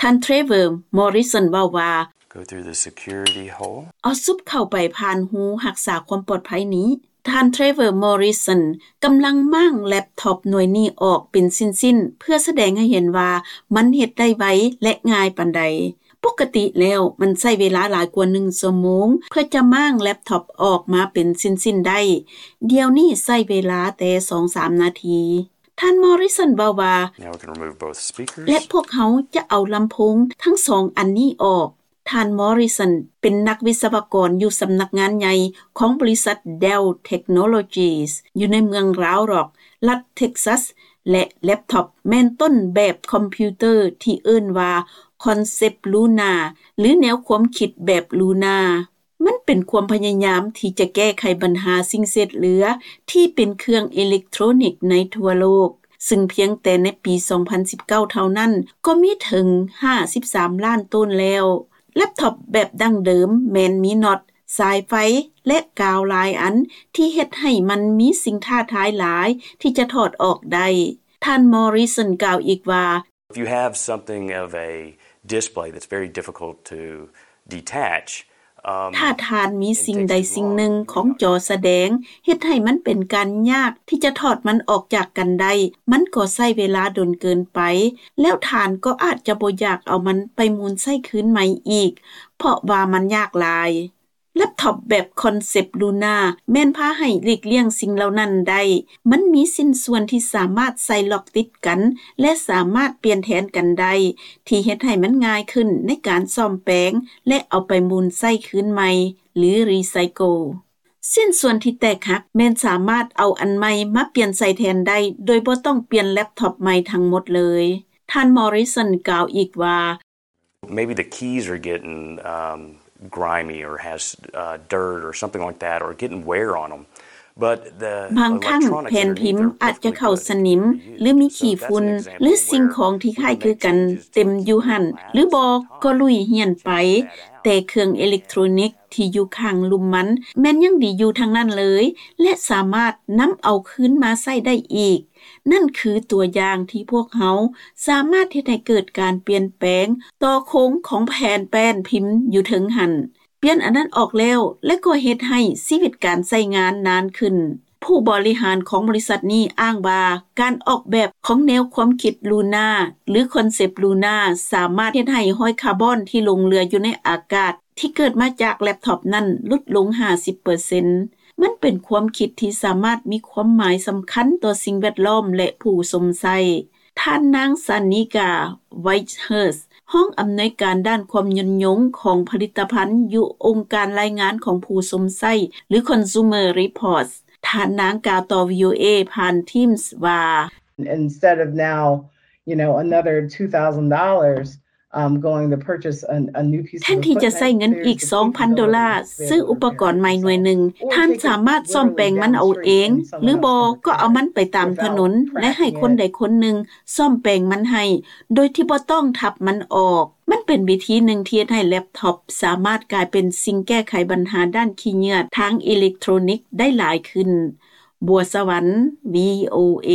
ທ່ານ Trevor Morrison ເວົ້າວ່າ Go through the security hole. ເອົາຊຸບເຂົ້າໄປຜ່ານຮູຮັກສາຄວາມປອດໄພນີ້. ທ່ານ Trevor Morrison ກຳລັງມ້າງແລັບທັອບໜ່ວຍນີ້ອອກເປັນຊິ້ນໆ ເພື່ອສະແດງໃຫ້ເຫັນວ່າມັນເຮັດໄດ້ໄວ ແລະ ງ່າຍປານໃດ. ປົກກະຕິແລ້ວມັນໃຊ້ເວລາຫຼາຍກວ່າໜຶ່ງຊົ່ວໂມງ ເພື່ອຈະມ້າງແລັບທັອບອອກມາເປັນຊິ້ນໆໄດ້. ດຽວນີ້ໃຊ້ເວລາແຕ່ສອງສາມນາທີ. ທ່ານ Morrison ເວົ້າວ່າ Now we can remove both speakers. ແລະ ພວກເຮົາຈະເອົາລຳໂພງທັງສອງອັນນີ້ອອກ. ທ່ານ Morrison ເປັນນັກວິສະວະກອນຢູ່ສຳນັກງານໃຫຍ່ຂອງບໍລິສັດ Dell Technologies ຢູ່ໃນເມືອງ Round Rock ລັດ Texas ແລະ ແລັບທັອບແມ່ນຕົ້ນແບບຄອມພິວເຕີທີ່ເອີ້ນວ່າ Concept Luna ຫຼື ແນວຄວາມຄິດແບບ Luna. ມັນເປັນຄວາມພະຍາຍາມທີ່ຈະແກ້ໄຂບັນຫາສິ່ງເສດເຫຼືອທີ່ເປັນເຄື່ອງເອເລັກໂທຣນິກໃນທົ່ວໂລກ, ຊຶ່ງພຽງແຕ່ໃນປີສອງພັນສິບເກົ້າເທົ່ານັ້ນ ກໍມີເຖິງຫ້າສິບສາມລ້ານໂຕນແລ້ວ. ແລັບທັອບແບບດັ້ງເດີມແມ່ນມີນັອດ, ສາຍໄຟ ແລະ ກາວຫຼາຍອັນ ທີ່ເຮັດໃຫ້ມັນມີສິ່ງທ້າທາຍຫຼາຍທີ່ຈະຖອດອອກໄດ້. ທ່ານ Morrison ກ່າວອີກວ່າ If you have something of a display that's very difficult to detach, um, ຖ້າທ່ານມີສິ່ງໃດສິ່ງໜຶ່ງຂອງຈໍສະແດງ ເຮັດໃຫ້ມັນເປັນການຍາກທີ່ຈະຖອດມັນອອກຈາກກັນໄດ້ ມັນກໍໃຊ້ເວລາດົນເກີນໄປ ແລ້ວທ່ານກໍອາດຈະບໍ່ຢາກເອົາມັນໄປໝູນໃຊ້ຄືນໃໝ່ອີກ ເພາະວ່າມັນຍາກຫຼາຍ. ແລັບທັອບແບບ Concept Luna ແມ່ນພາໃຫ້ຫຼີກລ່ຽງສິ່ງເຫຼົ່ານັ້ນໄດ້. ມັນມີຊິ້ນສ່ວນທີ່ສາມາດໃສ່ລັອກຕິດກັນ ແລະ ສາມາດປ່ຽນແທນກັນໄດ້ ທີ່ເຮັດໃຫ້ມັນງ່າຍຂຶ້ນໃນການສ້ອມແປງ ແລະ ເອົາໄປໝູນໃຊ້ຄືນໃໝ່ ຫຼື recycle. ຊິ້ນສ່ວນທີ່ແຕກຫັກແມ່ນສາມາດເອົາອັນໃໝ່ມາປ່ຽນໃສ່ແທນໄດ້ ໂດຍບໍ່ຕ້ອງປ່ຽນແລັບທັອບໃໝ່ທັງໝົດເລີຍ. ທ່ານ Morrison ກ່າວອີກວ່າ Maybe the keys are getting, um, grimy or has, uh, dirt or something like that, or getting wear on 'em. But the ບາງຄັ້ງແຜ່ນພິມອາດຈະເຂົ້າສະໜິມ ຫຼື ມີຂີ້ຝຸ່ນ ຫຼື ສິ່ງຂອງທີ່ຄ້າຍຄືກັນເຕັມຢູ່ຫັ້ນ ຫຼື ບໍ່ກໍລຸຍຫ້ຽນໄປ, ແຕ່ເຄື່ອງເອເລັກໂທຣນິກທີ່ຢູ່ຂ້າງລຸ່ມມັນແມ່ນຍັງດີຢູ່ທັງນັ້ນເລີຍ ແລະ ສາມາດນຳເອົາຄືນມາໃຊ້ໄດ້ອີກ. ນັ້ນຄືຕົວຢ່າງທີ່ພວກເຮົາສາມາດເຮັດໃຫ້ເກີດການປ່ຽນແປງຕໍ່ໂຄງຂອງແຜ່ນແປ້ນພິມຢູ່ເທິງຫັ້ນ. ປ່ຽນອັນນັ້ນອອກແລ້ວ ແລະ ກໍເຮັດໃຫ້ຊີວິດການໃຊ້ງານນານຂຶ້ນ. ຜູ້ບໍລິຫານຂອງບໍລິສັດນີ້ອ້າງວ່າ ການອອກແບບຂອງແນວຄວາມຄິດ Luna ຫຼື Concept Luna ສາມາດເຮັດໃຫ້ຮ້ອຍຄາບອນທີ່ຫຼົງເຫຼືອຢູ່ໃນອາກາດ ທີ່ເກີດມາຈາກແລັບທັອບນັ້ນຫຼຸດລົງຫ້າສິບເປີເຊັນ. ມັນເປັນຄວາມຄິດທີ່ສາມາດມີຄວາມໝາຍສຳຄັນຕໍ່ສິ່ງແວດລ້ອມ ແລະ ຜູ້ຊົມໃຊ້. ທ່ານນາງ Sanika Whitehurst ຮອງອຳນວຍການດ້ານຄວາມຍືນຍົງຂອງຜະລິດຕະພັນຢູ່ອົງການລາຍງານຂອງຜູ້ຊົມໃຊ້ ຫຼື Consumer Reports. ທ່ານນາງກ່າວຕໍ່ VOA ຜ່ານ Teams ວ່າ Instead of now, you know, another two thousand dollars, um, going to purchase a, a new piece of equipment, ແທນທີ່ຈະໃຊ້ເງິນອີກສອງພັນໂດລາ ຊື້ອຸປະກອນໃໝ່ໜ່ວຍໜຶ່ງ, ທ່ານສາມາດສ້ອມແປງມັນເອົາເອງ ຫຼືບໍ່ກໍເອົາມັນໄປຕາມຖະໜົນ ແລະ ໃຫ້ຄົນໃດຄົນໜຶ່ງສ້ອມແປງມັນໃຫ້ ໂດຍທີ່ບໍ່ຕ້ອງທັບມັນອອກ. ມັນເປັນວິທີໜຶ່ງທີ່ເຮັດໃຫ້ແລັບທັອບສາມາດກາຍເປັນສິ່ງແກ້ໄຂບັນຫາດ້ານຂີ້ເຫຍື້ອທາງເອເລັກໂທຣນິກໄດ້ຫຼາຍຂຶ້ນ. ບົວສະຫວັນ VOA.